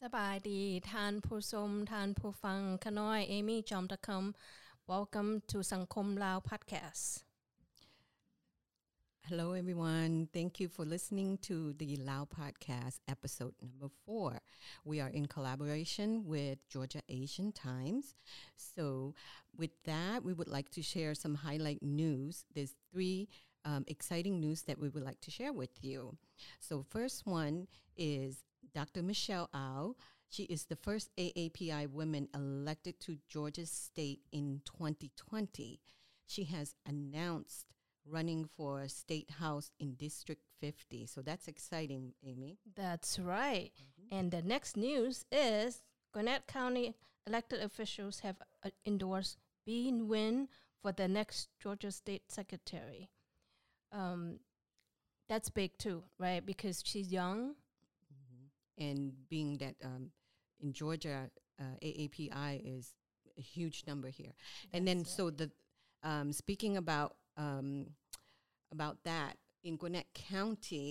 ສະບາຍດີທ່ານຜູ້ຊົມ, ທ່ານຜູ້ຟັງ. ຂ້ານ້ອຍ ເອມີ ຈອມຕະຄຳ. Welcome to ສັງຄົມລາວ Podcast. Hello, everyone. Thank you for listening to the Lao Podcast, episode number four. We are in collaboration with Georgia Asian Times. So, with that, we would like to share some highlight news. There's three, um, exciting news that we would like to share with you. So, first one is Doctor Michelle Au. She is the first A A P I woman elected to Georgia State in twenty twenty. She has announced running for State House in District fifty. So that's exciting, Amy. That's right. And the next news is Gwinnett County elected officials have, uh, endorsed Binh Nguyen for the next Georgia State Secretary. Um, that's big too, right? Because she's young. And being that, um, in Georgia, uh, A A P I is a huge number here. And then, so the, um, speaking about, um, about that, in Gwinnett County,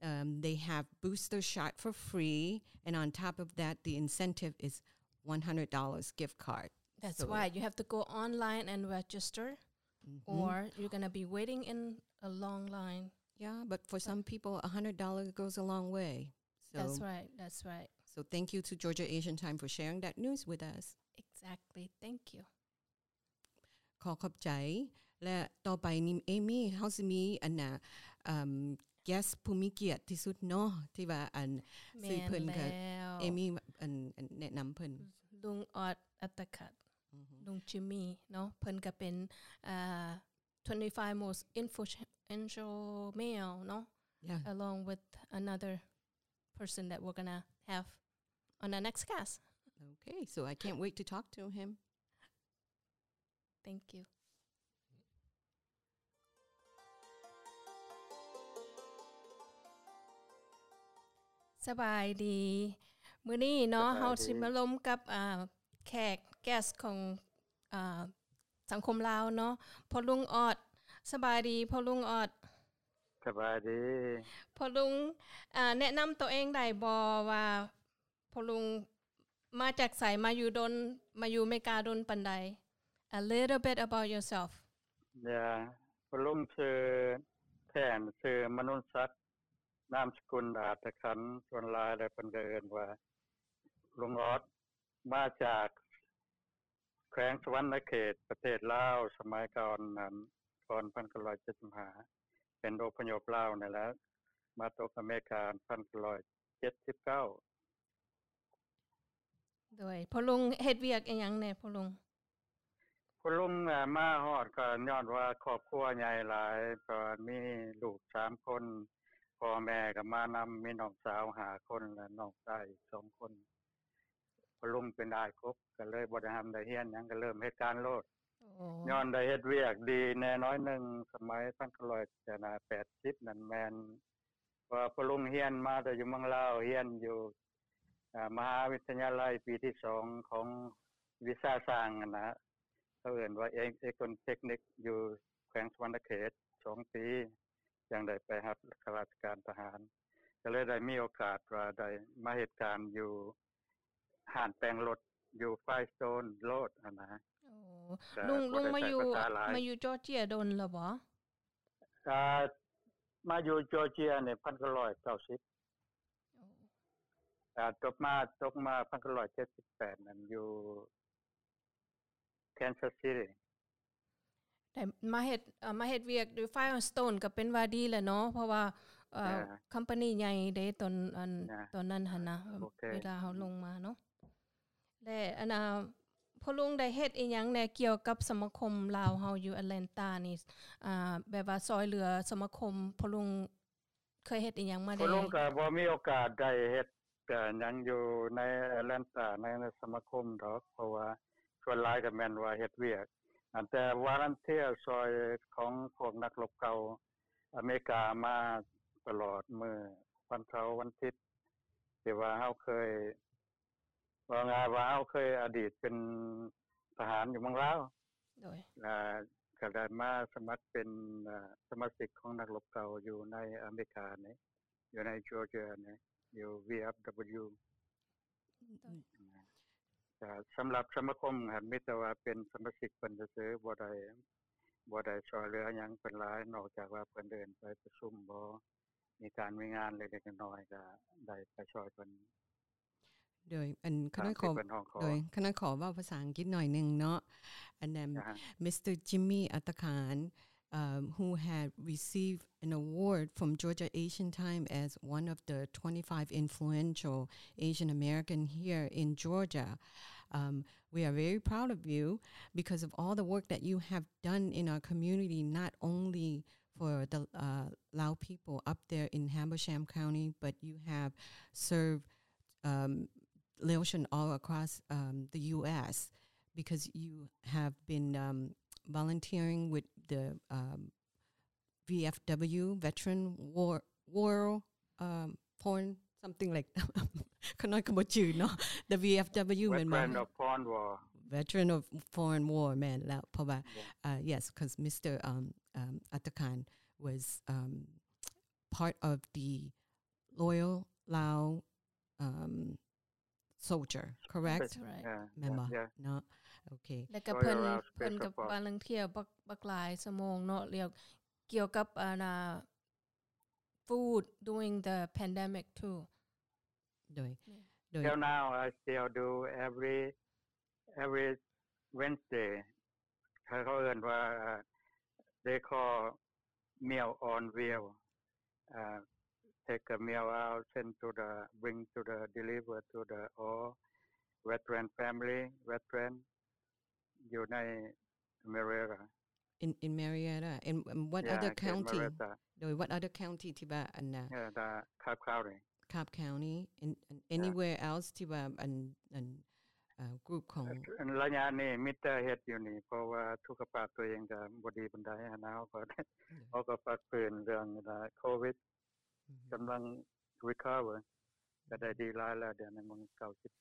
um, they have booster shot for free, and on top of that, the incentive is one hundred dollars gift card. That's right. You have to go online and register, or you're gonna be waiting in a long line. Yeah, but for some people, a hundred dollars goes a long way. So, that's right. That's right. So thank you to Georgia Asian Time for sharing that news with us. Exactly. Thank you. ຂໍຂອບໃຈ ແລະ ຕໍ່ໄປນີ້ ເອມີ ເຮົາຊິມີອັນນ່າ ເອີ່ມ guest ຜູ້ມີກຽດທີ່ສຸດເນາະ ທີ່ວ່າອັນ ແມ່ນ ຊື່ເພິ່ນກະ ແລ້ວ ເອມີ ອັນ ອັນແນະນຳເພິ່ນ ລຸງອອດ ອັດຕະຂັດ ລຸງຈິມມີເນາະ ເພິ່ນກະເປັນ ອ່າ twenty-five most influential male ເນາະ along with another person that we're gonna have on our next cast. Okay, so I can't wait to talk to him. Thank you. ສະບາຍດີ ມື້ນີ້ເນາະ ສະບາຍດີ ເຮົາຊິມາລົມກັບ ອ່າ ແຂກ guest ຂອງ ອ່າ ສັງຄົມລາວເນາະ ພໍ່ລຸງອອດ. ສະບາຍດີພໍ່ລຸງອອດ. ສະບາຍດີ. ພໍ່ລຸງ ອ່າ ແນະນຳໂຕເອງໄດ້ບໍ່ວ່າ ພໍ່ລຸງມາຈາກໃສ ມາຢູ່ດົນ ມາຢູ່ເມກາດົນປານໃດ? A little bit about yourself. ເອີ ພໍ່ລຸງຊື່ ແທ້ນຊື່ ມະນຸນສັກ ນາມສະກຸນ ອາດຕະຂັນ ສ່ວນຫຼາຍແລ້ວເພິ່ນກະເອີ້ນວ່າ ລຸງອອດ ມາຈາກ ແຂວງສະຫວັນນະເຂດ ປະເທດລາວ ສະໄໝກ່ອນນັ້ນ ກ່ອນພັນເກົ້າຮ້ອຍເຈັດສິບຫ້າ ເປັນອົບພະຍົບລາວນັ້ນແຫຼະ ມາຕົກອາເມລິກາພັນເກົ້າຮ້ອຍເຈັດສິບເກົ້າ. ໂດຍ ພໍ່ລຸງເຮັດວຽກອີ່ຫຍັງແດ່ພໍ່ລຸງ? ພໍ່ລຸງ ເອີ່ ມາຮອດກໍຍ້ອນວ່າຄອບຄົວໃຫຍ່ຫຼາຍ ກໍມີລູກສາມຄົນ ພໍ່ແມ່ກໍມານຳ ມີນ້ອງສາວຫ້າຄົນ ແລະ ນ້ອງຊາຍອີກສອງຄົນ. ພໍ່ລຸງເປັນອ້າຍກົກ ກໍເລີຍບໍ່ໄດ້ຮ່ຳໄດ້ຮຽນຫຍັງ ກໍເລີ່ມເຮັດການໂລດ. ໂອ້ ຍ້ອນໄດ້ເຮັດວຽກດີແດ່ໜ້ອຍໜຶ່ງ ສະໄໝພັນເກົ້າຮ້ອຍແປດສິບນັ້ນແມ່ນ ເພາະວ່າພໍ່ລຸງຮຽນມາແຕ່ຢູ່ເມືອງລາວ ຮຽນຢູ່ ອ່າ ມະຫາວິທະຍາໄລປີທີສອງຂອງວິຊາຊ່າງຫັ້ນນະ ເຂົາເອີ້ນວ່າເອກ ເອກອນເຕັກນິກ ຢູ່ແຂວງສະຫວັນນະເຂດສອງປີ ຈັ່ງໄດ້ໄປຮັບຂ້າລາຊະການທະຫານ ກໍເລີຍໄດ້ມີໂອກາດວ່າໄດ້ມາເຮັດການຢູ່ຮ້ານແປງລົດ ຢູ່ໄຟສະໂຕນໂຣດຫັ້ນນະ. ໂອ້ ລຸງ ລຸງມາຢູ່ ມາຢູ່ຈໍເຈຍດົນແລ້ວບໍ່? ອ່າ ມາຢູ່ຈໍເຈຍນີ້ພັນເກົ້າຮ້ອຍເກົ້າສິບ ໂອ້ ອ່າ ຈົບມາ ຈົບມາພັນເກົ້າຮ້ອຍເຈັດສິບແປດນັ້ນ ຢູ່ Kansas City ໄດ້ມາເຮັດ ເອີ່ ມາເຮັດວຽກຢູ່ Firestone ກໍເປັນວ່າດີແຫຼະເນາະ ເພາະວ່າ ເອີ່ ເອີ ຄອມພານີໃຫຍ່ເດ້ ຕອນ ອັນ ເອີ ຕອນນັ້ນຫັ້ນນະ ໂອເຄ ເວລາເຮົາລົງມາເນາະ. ແລະ ອັນ ອ່າ ພໍ່ລຸງໄດ້ເຮັດອີ່ຫຍັງແດ່ກ່ຽວກັບສະມາຄົມລາວເຮົາຢູ່ Atlanta ນີ້ ອ່າ ແບບວ່າຊ່ອຍເຫຼືອສະມາຄົມ ພໍ່ລຸງເຄີຍເຮັດອີ່ຫຍັງມາແດ່? ພໍ່ລຸງກໍບໍ່ມີໂອກາດໄດ້ເຮັດຫຍັງຢູ່ໃນ Atlanta ໃນ ໃນສະມາຄົມດອກ ເພາະວ່າສ່ວນຫຼາຍກໍແມ່ນວ່າເຮັດວຽກ ອັນ ແຕ່ volunteer ຊ່ອຍຂອງພວກນັກລົບເກົ່າອາເມລິກາມາຕະຫຼອດ ມື້ວັນເສົາວັນທິດ ທີ່ວ່າເຮົາເຄີຍ ເວົ້າງ່າຍວ່າເຮົາເຄີຍອະດີດເປັນທະຫານຢູ່ເມືອງລາວ ໂດຍ ແລະ ກໍໄດ້ມາສະໝັກເປັນ ເອີ່ ສະມາຊິກຂອງນັກລົບເກົ່າຢູ່ໃນອາເມລິການີ້ ຢູ່ໃນ Georgia ນີ້ ຢູ່ V F W. ໂດຍ ກໍສຳລັບສະມາຄົມຫັ້ນ ມີແຕ່ວ່າເປັນສະມາຊິກເພິ່ນຊື່ໆ ບໍ່ໄດ້ ບໍ່ໄດ້ຊ່ອຍເຫຼືອຫຍັງເພິ່ນຫຼາຍ ນອກຈາກວ່າເພິ່ນເອີ້ນໄປປະຊຸມບໍ ມີການມີງານເລັກໆນ້ອຍໆ ກໍໄດ້ໄປຊ່ອຍເພິ່ນ ໂດຍ ອັນ ຂ້ານ້ອຍຂໍ ຕາມທີ່ເພິ່ນຮ້ອງຂໍ ໂດຍ ຂ້ານ້ອຍຂໍເວົ້າພາສາອັງກິດໜ້ອຍໜຶ່ງເນາະ and then ອ່າຮະ Mister Jimmy Atakan, um, who had received an award from Georgia Asian Time as one of the twenty-five influential Asian American here in Georgia. Um, we are very proud of you because of all the work that you have done in our community, not only for the, uh, Lao people up there in Habersham County, but you have served, um, Laotian all across, um, the U S because you have been, um, volunteering with the, um, V F W, Veteran War, War, um, Foreign, something like ຂ້ານ້ອຍກໍບໍ່ຈື່ເນາະ the V F W ແມ່ນບໍ່? Veteran of Foreign War. Veteran of Foreign War ແມ່ນແລ້ວ ເພາະວ່າ Yeah. uh, yes, 'cause Mister, um, um, Atakan was, um, part of the Loyal Lao, um, soldier, correct? That's right. Yeah, ແມ່ນບໍ່? Yeah, yeah. ເນາະ ໂອເຄ ແລ້ວກໍເພິ່ນ Royal Lao ເພິ່ນກໍ Special Force. volunteer ບັກ ບັກຫຼາຍຊົ່ວໂມງເນາະ ແລ້ວກ່ຽວກັບ ອັນນ່າ food during the pandemic too. ໂດຍ ໂດຍ Till now, I still do every, every Wednesday. ເຂົາເອີ້ນວ່າ they call Meal on Wheel. Uh, take a meal out, send to the, bring to the, deliver to the all veteran family, veteran ຢູ່ໃນ Marietta. In, in Marietta. And, and what Yeah, other in county? Marietta. ໂດຍ what other county ທີ່ວ່າອັນນ່າ Yeah, the Cobb County. Cobb County. And, and Yeah. anywhere else ທີ່ວ່າອັນ ອັນ ເອີ່ group ຂອງ ເອີ່ ໄລຍະນີ້ມີແຕ່ເຮັດຢູ່ນີ້ ເພາະວ່າສຸຂະພາບຕົວເອງກໍບໍ່ດີປານໃດຫັ້ນນະ ເຮົາກໍ ໂດຍ ເຮົາກໍພັກຟື້ນເລື່ອງໂຄວິດ ອືມ ກຳລັງ recover ກໍໄດ້ດີຫຼາຍແລ້ວ ດຽວນີ້ມັນເກົ້າສິບ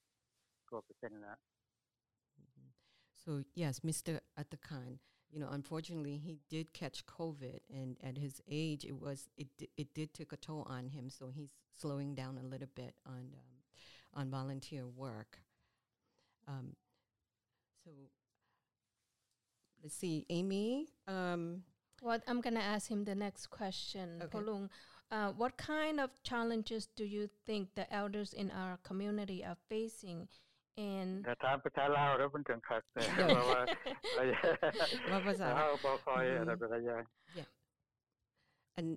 ກວ່າເປີເຊັນແລ້ວ. So yes, Mister Atakan, you know, unfortunately, he did catch COVID, and at his age, it was, it di-, it did take a toll on him. So he's slowing down a little bit on, um, on volunteer work. Um, so let's see, Amy, um, What, I'm gonna ask him the next question. Okay. ພໍ່ລຸງ uh, what kind of challenges do you think the elders in our community are facing? And ຖ້າຖາມພາສາລາວແລ້ວມັນຈັ່ງຄັກ ເພາະວ່າ ເວົ້າພາສາລາວ ເຮົາບໍ່ຄ່ອຍ ອືມ ອັນນັ້ນປານໃດຢ່າງ Yeah. ອັນ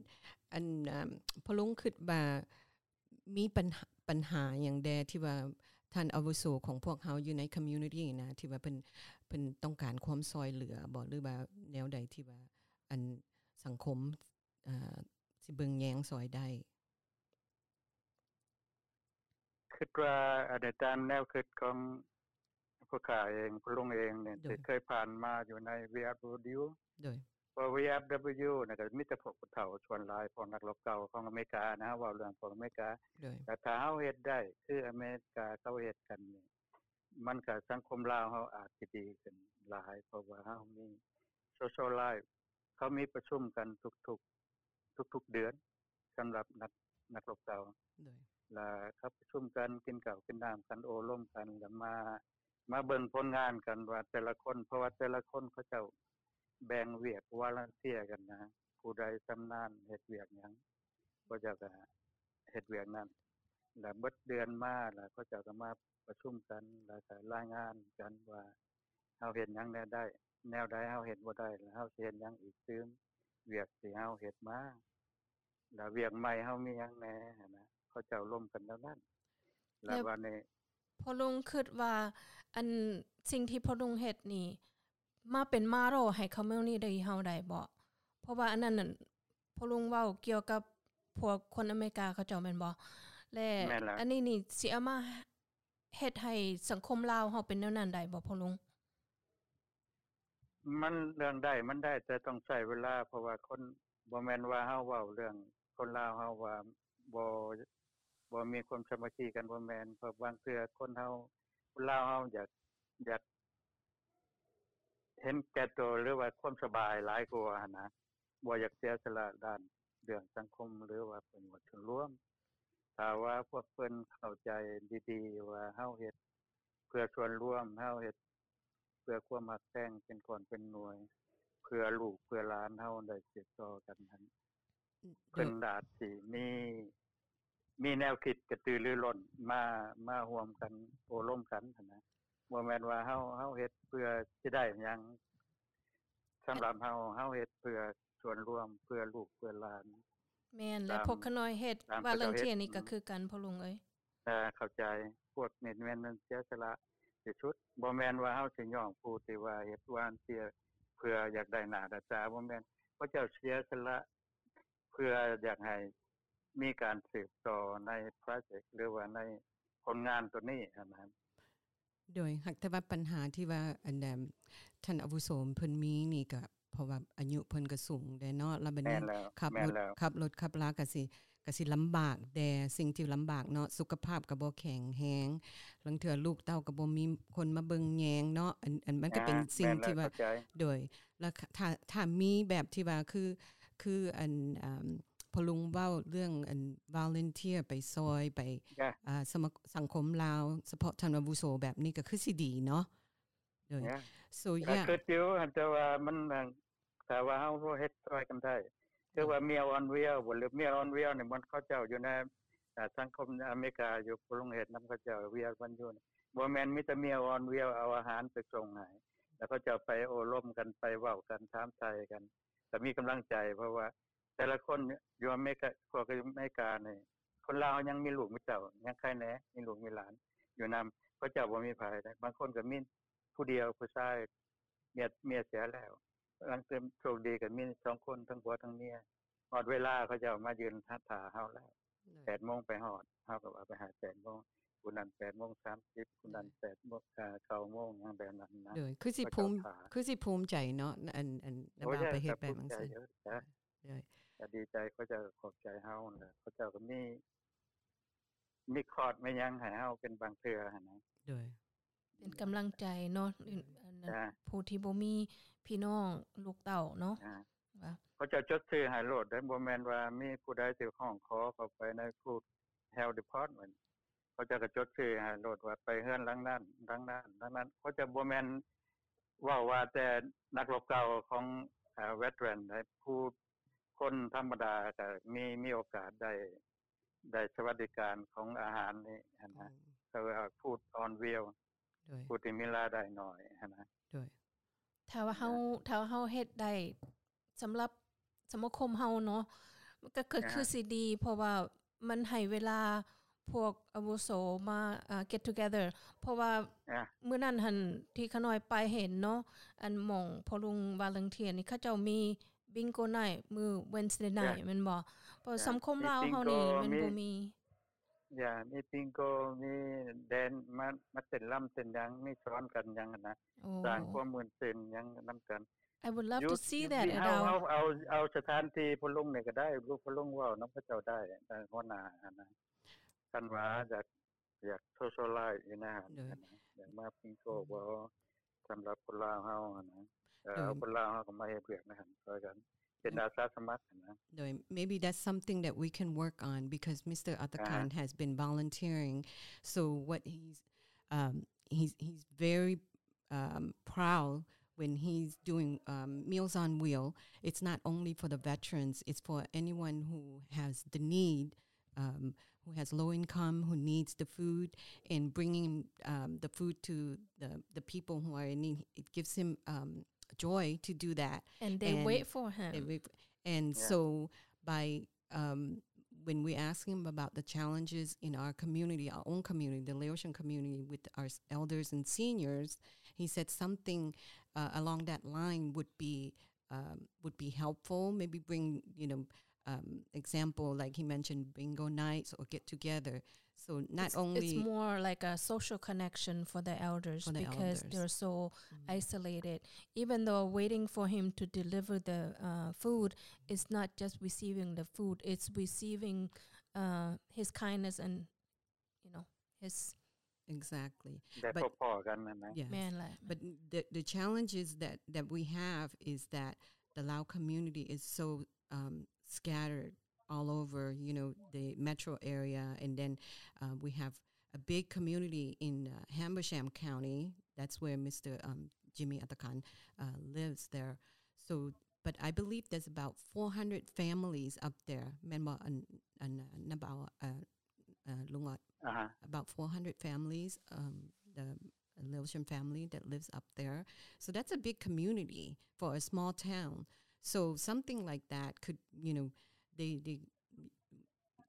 ອັນ ເອີ່ມ ພໍ່ລຸງຄິດວ່າ ມີບັນຫາ ບັນຫາຫຍັງແດ່ທີ່ວ່າທ່ານອາວຸໂສຂອງພວກເຮົາຢູ່ໃນ community ນະ ທີ່ວ່າເພິ່ນ ເພິ່ນຕ້ອງການຄວາມຊ່ອຍເຫຼືອບໍ ຫຼືວ່າແນວໃດທີ່ວ່າ ອັນ ສັງຄົມ ເອີ່ ຊິເບິ່ງແຍງຊ່ອຍໄດ້? ຄິດວ່າ ອັນ ຕາມແນວຄິດຂອງ ພວກຂ້າເອງ ພໍ່ລຸງເອງນີ້ ໂດຍ ທີ່ເຄີຍຜ່ານມາຢູ່ໃນ VFW ໂດຍ ເພາະ VFW ນີ້ກໍມີແຕ່ພວກຜູ້ເຖົ້າສ່ວນຫຼາຍ ພວກນັກລົບເກົ່າຂອງອາເມລິການະ ເວົ້າເລື່ອງພວກອາເມລິກາ ໂດຍ ແຕ່ຖ້າເຮົາເຮັດໄດ້ຄືອາເມລິກາເຂົາເຮັດກັນນີ້ ມັນກໍ ສັງຄົມລາວເຮົາອາດຈະດີຂຶ້ນຫຼາຍ ເພາະວ່າເຮົາມີ social life ເຂົາມີປະຊຸມກັນທຸກໆ ທຸກໆເດືອນ ສຳລັບນັກ ນັກລົບເກົ່າ ໂດຍ ລະເຂົາປະຊຸມກັນ ກິນເຂົ້າກິນນ້ຳກັນ ໂອ້ລົມກັນ ລະມາ ມາເບິ່ງຜົນງານກັນວ່າແຕ່ລະຄົນ ເພາະວ່າແຕ່ລະຄົນເຂົາເຈົ້າແບ່ງວຽກ volunteer ກັນນະ ຜູ້ໃດຊຳນານເຮັດວຽກຫຍັງ ເຂົາເຈົ້າກໍເຮັດວຽກນັ້ນ ລະເບິດເດືອນມາ ລະເຂົາເຈົ້າກໍມາປະຊຸມກັນ ລະກໍລາຍງານກັນວ່າ ເຮົາເຮັດຫຍັງແນວໃດ ແນວໃດເຮົາເຮັດບໍ່ໄດ້ ແລ້ວເຮົາຊິເຮັດຫຍັງອີກຕື່ມ ວຽກທີ່ເຮົາເຮັດມາ ແລ້ວວຽກໃໝ່ເຮົາມີຫຍັງແດ່ຫັ້ນນະ ເຂົາເຈົ້າລົມກັນແນວນັ້ນ ແລ້ວ ແລ້ວບາດນີ້ ພໍ່ລຸງຄິດວ່າ ອັນ ສິ່ງທີ່ພໍ່ລຸງເຮັດນີ້ ມາເປັນມາໂຣໃຫ້ຄອມມູນິຕີ້ເຮົາໄດ້ບໍ່? ເພາະວ່າອັນນັ້ນນັ້ນ ພໍ່ລຸງເວົ້າກ່ຽວກັບພວກຄົນອາເມລິກາເຂົາເຈົ້າແມ່ນບໍ່? ແລະ ແມ່ນແລ້ວ ອັນນີ້ນີ້ຊິເອົາມາ ເຮັດໃຫ້ສັງຄົມລາວເຮົາເປັນແນວນັ້ນໄດ້ບໍ່ພໍ່ລຸງ? ມັນເລື່ອງໄດ້ມັນໄດ້ ແຕ່ຕ້ອງໃຊ້ເວລາ ເພາະວ່າຄົນ ບໍ່ແມ່ນວ່າເຮົາເວົ້າເລື່ອງຄົນລາວເຮົາວ່າບໍ່ ບໍ່ມີຄວາມສາມັກຄີກັນ ບໍ່ແມ່ນ ເພາະບາງເທື່ອຄົນເຮົາ ຄົນລາວເຮົາຢາກ ຢາກເຫັນແກ່ໂຕ ຫຼືວ່າຄວາມສະບາຍຫຼາຍກວ່າຫັ້ນນະ ບໍ່ຢາກເສຍສະຫຼະດ້ານເລື່ອງສັງຄົມ ຫຼືວ່າປະໂຫຍດສ່ວນລວມ ຖ້າວ່າພວກເພິ່ນເຂົ້າໃຈດີໆ ວ່າເຮົາເຮັດເພື່ອສ່ວນລວມ, ເຮົາເຮັດເພື່ອຄວາມຮັກແພງເປັນກ້ອນເປັນໜ່ວຍ, ເພື່ອລູກເພື່ອຫຼານເຮົາໄດ້ສືບຕໍ່ກັນຫັ້ນ, ເພິ່ນອາດຊິມີ ມີແນວຄິດກະຕືລືລົ້ນມາ ມາຮ່ວມກັນໂອ້ລົມກັນຫັ້ນນະ. ບໍ່ແມ່ນວ່າເຮົາ ເຮົາເຮັດເພື່ອຊິໄດ້ຫຍັງ. ສຳລັບເຮົາ ເຮົາເຮັດເພື່ອສ່ວນລວມ, ເພື່ອລູກເພື່ອຫຼານ. ແມ່ນ ແລະ ພວກຂ້ານ້ອຍເຮັດ volunteer ນີ້ກໍຄືກັນ ພໍ່ລຸງເອີຍ. ເອີ ເຂົ້າໃຈ. ພວກນີ້ແມ່ນ ແມ່ນເສຍສະຫຼະທີ່ສຸດ. ບໍ່ແມ່ນວ່າເຮົາຊິຍ້ອງຜູ້ທີ່ວ່າເຮັດ volunteer ເພື່ອຢາກໄດ້ໜ້າໄດ້ຕາ, ບໍ່ແມ່ນ. ເຂົາເຈົ້າເສຍສະຫຼະ ເພື່ອຢາກໃຫ້ມີການສືບຕໍ່ໃນໂປຣເຈັກ ຫຼືວ່າໃນຜົນງານໂຕນີ້ຫັ້ນນະ. ໂດຍ ຫາກແຕ່ວ່າປັນຫາທີ່ວ່າ ອັນ ທ່ານອາວຸໂສເພິ່ນມີນີ້ ກໍເພາະວ່າອາຍຸເພິ່ນກໍສູງແດ່ເນາະ, ແລ້ວບັດນີ້ຂັບລົດ ແມ່ນແລ້ວ ຂັບລົດຂັບລາກໍຊິ ກໍຊິລຳບາກແດ່ ສິ່ງທີ່ລຳບາກເນາະ, ສຸຂະພາບກໍບໍ່ແຂງແຮງ, ລາງເທື່ອລູກເຕົ້າກໍບໍ່ມີຄົນມາເບິ່ງແຍງເນາະ. ອັນ ອັນ ມັນກໍເປັນສິ່ງທີ່ວ່າ ແມ່ນແລ້ວ ເຂົ້າໃຈ. ໂດຍ ແລ້ວ ຖ້າ ຖ້າມີແບບທີ່ວ່າ ຄື ຄື ອັນ ອ່າ ພໍ່ລຸງເວົ້າເລື່ອງ ອັນ volunteer ໄປຊ່ອຍ ໄປ ອ່າ ສະມາ ສັງຄົມລາວ ສະເພາະທ່ານອາວຸໂສແບບນີ້ ກໍຄືຊິດີເນາະ. ໂດຍ so ກໍ yeah ຄິດຢູ່ ແຕ່ວ່າມັນ ຖ້າວ່າເຮົາເຮັດຊ່ອຍກັນໄດ້ ຄືວ່າ Meals on Wheels ບໍ່ ຫຼື Meals on Wheels ນີ້ ມັນເຂົາເຈົ້າຢູ່ໃນ ອ່າ ສັງຄົມອາເມລິກາຢູ່ ຜູ້ລົງເຮັດນຳເຂົາເຈົ້າ ວຽກມັນຢູ່ ບໍ່ແມ່ນມີແຕ່ Meals on Wheels ເອົາອາຫານໄປສົ່ງໃຫ້ ແລ້ວເຂົາເຈົ້າໄປໂອ້ລົມກັນ ໄປເວົ້າກັນ ຖາມໄຖ່ກັນ ກໍມີກຳລັງໃຈ ເພາະວ່າແຕ່ລະຄົນຢູ່ອາເມລິກາ ພວກຢູ່ອາເມລິການີ້ ຄົນລາວຍັງມີລູກມີເຕົ້າ ຍັງໃຄແດ່ ມີລູກມີຫຼານຢູ່ນຳ ເຂົາເຈົ້າບໍ່ມີໃຜເດ້. ບາງຄົນກໍມີຜູ້ດຽວ ຜູ້ຊາຍ ເມຍ ເມຍເສຍແລ້ວ ລາງເທື່ອໂຊກດີກໍມີສອງຄົນ ທັງຜົວທັງເມຍ. ຮອດເວລາເຂົາເຈົ້າມາຢືນຖ້າເຮົາແລ້ວ ໂດຍ ແປດໂມງໄປຮອດ ເຮົາກໍວ່າໄປຫາແປດໂມງ ຜູ້ນັ້ນແປດໂມງສາມສິບ ຜູ້ນັ້ນແປດໂມງ ເກົ້າໂມງ ຫຍັງແບບນັ້ນນະ. ໂດຍ ຄືຊິພູມ ຄືຊິພູມໃຈເນາະ ອັນ ອັນ ໂອ້ຍ ນາບ່າວໄປເຮັດແບບນັ້ນ. ໂດຍ ກໍດີໃຈ ເຂົາເຈົ້າກໍຂອບໃຈເຮົາແຫຼະ ເຂົາເຈົ້າກໍມີ ມີຄອດ ມີຫຍັງໃຫ້ເຮົາເປັນບາງເທື່ອຫັ້ນນະ. ໂດຍ ເປັນກຳລັງໃຈເນາະ ອັນນັ້ນ ຜູ້ທີ່ບໍ່ມີພີ່ນ້ອງລູກເຕົ້າເນາະ ເຂົາເຈົ້າຈົດຊື່ໃຫ້ໂລດເດ້ ບໍ່ແມ່ນວ່າມີຜູ້ໃດຊິຮ້ອງຂໍເຂົ້າໄປໃນ Food Health Department ເຂົາເຈົ້າກໍຈົດຊື່ໃຫ້ໂລດວ່າໄປເຮືອນຫຼັງນັ້ນ ຫຼັງນັ້ນ ຫຼັງນັ້ນ. ເຂົາເຈົ້າບໍ່ແມ່ນເວົ້າວ່າແຕ່ນັກລົບເກົ່າຂອງ veteran ໃດ ຜູ້ຄົນທຳມະດາກໍມີ ມີໂອກາດໄດ້ ໄດ້ສະຫວັດດີການຂອງອາຫານນີ້ຫັ້ນນະ ເຂົາເອີ້ນວ່າ Food on Wheels ໂດຍ ຜູ້ທີ່ມີລາຍໄດ້ໜ້ອຍຫັ້ນນະ. ໂດຍ ຖ້າວ່າເຮົາ ຖ້າເຮົາເຮັດໄດ້ ສຳລັບສະມາຄົມເຮົາເນາະ ມັນກໍຄືຊິດີ ເພາະວ່າມັນໃຫ້ເວລາພວກອາວຸໂສມາ get together ເພາະວ່າມື້ນັ້ນຫັ້ນທີ່ຂ້ານ້ອຍໄປເຫັນເນາະ ອັນໝ່ອງພໍ່ລຸງ volunteer ນີ້ ເຂົາເຈົ້າມີ Bingo Night ມື້ Wednesday Night ແມ່ນບໍ່? ເພາະສັງຄົມລາວເຮົານີ້ມັນບໍ່ມີ ຢ່າ ມີ Bingo ມີແດນ ມາ ມາເຕັ້ນລຳເຕັ້ນຫຍັງ ມີສອນກັນຫຍັງຫັ້ນນະ ສ້າງຄວາມມ່ວນຊື່ນຫຍັງນຳກັນ. I would love to see that. ເຮົາ ເຮົາເອົາ ເອົາສະຖານທີ່ພໍ່ລຸງນີ້ກໍໄດ້ ລູກພໍ່ລຸງເວົ້ານຳເຂົາເຈົ້າໄດ້ ຫົວໜ້າຫັ້ນນະ ຄັນວ່າຢາກ ຢາກ socialize ຢູ່ໃນຫັ້ນ ຢາກມາ Bingo ບໍ່ ສຳລັບຄົນລາວເຮົາຫັ້ນນະ ເອີ ຄົນລາວເຮົາກໍມາເຮັດວຽກໃນຫັ້ນຊ່ອຍກັນ ເປັນອາສາສະໝັກຫັ້ນນະ. ໂດຍ maybe that's something that we can work on because Mister Atakan has been volunteering, so what he's um he's he's very um proud when he's doing um Meals on Wheel. It's not only for the veterans, it's for anyone who has the need, um who has low income, who needs the food, and bringing um the food to the the people who are in need, it gives him um joy to do that. And they wait for him. And so by um when we ask him about the challenges in our community, our own community, the Laotian community, with our elders and seniors, he said something uh, along that line would be um, would be helpful. Maybe bring, you know, um, example, like he mentioned, bingo nights or get together. So not only it's more like a social connection for the elders because they're so isolated. Even though waiting for him to deliver the uh, food, it's not just receiving the food; it's receiving uh, his kindness and you know his exactly ໄດ້ພົບພໍ້ກັນນັ້ນນະ. ແມ່ນແຫຼະ but the the challenges that that we have is that the Lao community is so um scattered all over, you know, the metro area. And then uh, we have a big community in uh, Habersham County. That's where Mister Um, Jimmy Atakan uh, lives there. So, but I believe there's about four hundred families up there. ແມ່ນບໍ່? ອັນ ອັນ about uh, uh, ລຸງອອດ ອ່າຮະ about four hundred families, um, the Lewisham family that lives up there. So that's a big community for a small town. So something like that could, you know, they they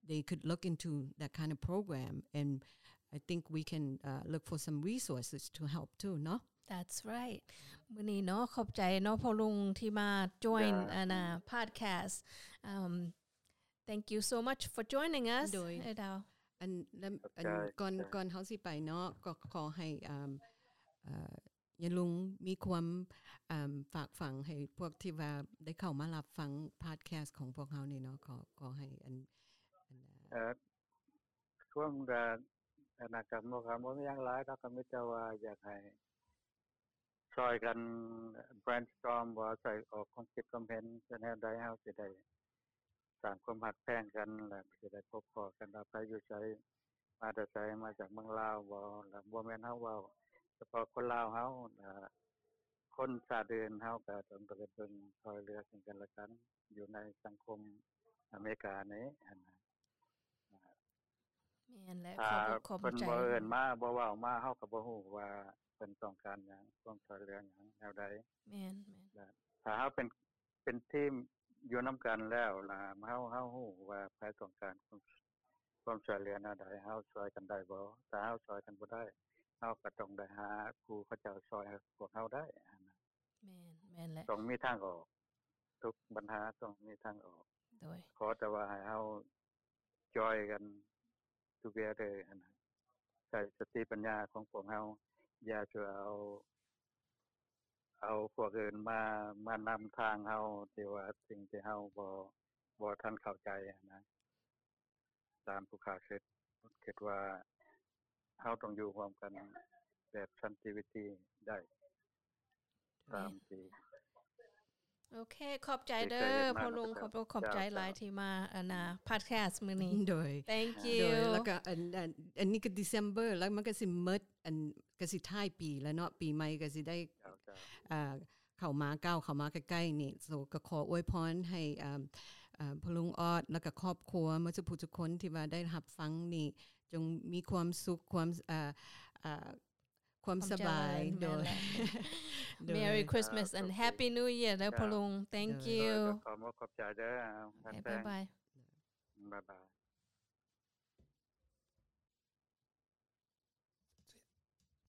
they could look into that kind of program, and I think we can uh, look for some resources to help too, no? That's right. ມື້ນີ້ເນາະ ຂອບໃຈເນາະພໍ່ລຸງທີ່ມາ join ອັນນ່າ podcast. Um, thank you so much for joining us. ໂດຍ ເອີດາວ ອັນ ອັນ ກ່ອນ ກ່ອນເຮົາຊິໄປເນາະ ກໍຂໍໃຫ້ ອ່າ ຍາລຸງມີຄວາມ ອ່າ ຝາກຝັງໃຫ້ພວກທີ່ວ່າໄດ້ເຂົ້າມາຮັບຟັງ podcast ຂອງພວກເຮົານີ້ເນາະ. ຂໍ ຂໍໃຫ້ອັນ ອັນ ເອີ ຊ່ວງ ອະນາກຳ ບໍ່ ກໍບໍ່ມີຫຍັງຫຼາຍດອກ ກໍມີແຕ່ວ່າຢາກໃຫ້ຊ່ອຍກັນ brainstorm ບໍ່ ໃສ່ອອກຄວາມຄິດຄວາມເຫັນ ແນວໃດເຮົາຊິໄດ້ ສ້າງຄວາມຮັກແພງກັນ ແລະ ຊິໄດ້ພົບພໍ້ກັນວ່າໃຜຢູ່ໃສ ມາແຕ່ໃສ ມາຈາກເມືອງລາວບໍ່ ແລະ ບໍ່ແມ່ນເຮົາເວົ້າສະເພາະຄົນລາວເຮົາ ແລະ ຄົນຊາດອື່ນເຮົາກໍຕ້ອງໄດ້ເບິ່ງຊ່ອຍເຫຼືອເຊິ່ງກັນແລະກັນ ຢູ່ໃນສັງຄົມອາເມລິການີ້ຫັ້ນນະ. ແມ່ນແຫຼະ ຂອບຂອບໃຈ ເພິ່ນບໍ່ເອີ້ນມາ ບໍ່ເວົ້າມາ ເຮົາກໍບໍ່ຮູ້ວ່າເພິ່ນຕ້ອງການຫຍັງ ຄວາມຊ່ອຍເຫຼືອຫຍັງ ແນວໃດ. ແມ່ນ ແມ່ນ ຖ້າເຮົາເປັນ ເປັນທີມຢູ່ນຳກັນແລ້ວລະ ເຮົາ ເຮົາຮູ້ວ່າໃຜຕ້ອງການຄວາມ ຄວາມຊ່ວຍເຫຼືອແນວໃດ ເຮົາຊ່ວຍກັນໄດ້ບໍ່? ຖ້າເຮົາຊ່ວຍກັນບໍ່ໄດ້ ເຮົາກໍຕ້ອງໄດ້ຫາຜູ້ເຂົາເຈົ້າຊ່ອຍພວກເຮົາໄດ້. ແມ່ນ ແມ່ນແຫຼະ ຕ້ອງມີທາງອອກ ທຸກບັນຫາຕ້ອງມີທາງອອກ. ໂດຍ ຂໍແຕ່ວ່າໃຫ້ເຮົາ join ກັນ together ຫັ້ນນະ ໃຊ້ສະຕິປັນຍາຂອງພວກເຮົາ ຢ່າຈະເອົາ ເອົາພວກອື່ນມາ ມານຳທາງເຮົາ ທີ່ວ່າສິ່ງທີ່ເຮົາບໍ່ ບໍ່ທັນເຂົ້າໃຈຫັ້ນນະ. ຕາມຜູ້ຂ້າຄິດ ຄິດວ່າເຮົາຕ້ອງຢູ່ຮ່ວມກັນແບບສັນຕິວິທີໄດ້. ຕາມທີ່ ໂອເຄ ຂອບໃຈເດີພໍ່ລຸງ ຂອບ ຂອບໃຈຫຼາຍທີ່ມາອັນນ່າ podcast ມື້ນີ້. ໂດຍ thank you ໂດຍ ແລ້ວກໍອັນ ອັນ ອັນນີ້ກໍ December ແລ້ວມັນກໍຊິໝົດ ອັນ ກໍຊິທ້າຍປີແລ້ວເນາະ ປີໃໝ່ກໍຊິໄດ້ ອ່າ ເຂົ້າມາ ກ້າວເຂົ້າມາໃກ້ໆນີ້. So ກໍຂໍອວຍພອນໃຫ້ ອ່າ ອ່າ ພໍ່ລຸງອອດ ແລ້ວກໍຄອບຄົວໝົດທຸກຜູ້ທຸກຄົນທີ່ວ່າໄດ້ຮັບຟັງນີ້ ຈົ່ງມີຄວາມສຸກ ຄວາມ ອ່າ ອ່າ ຄວາມສະບາຍ. ໂດຍ Merry Christmas and Happy New Year ເດີພໍ່ລຸງ. Thank you ໂດຍ ຂອບໃຈເດີ. ບາຍບາຍ ບາຍບາຍ.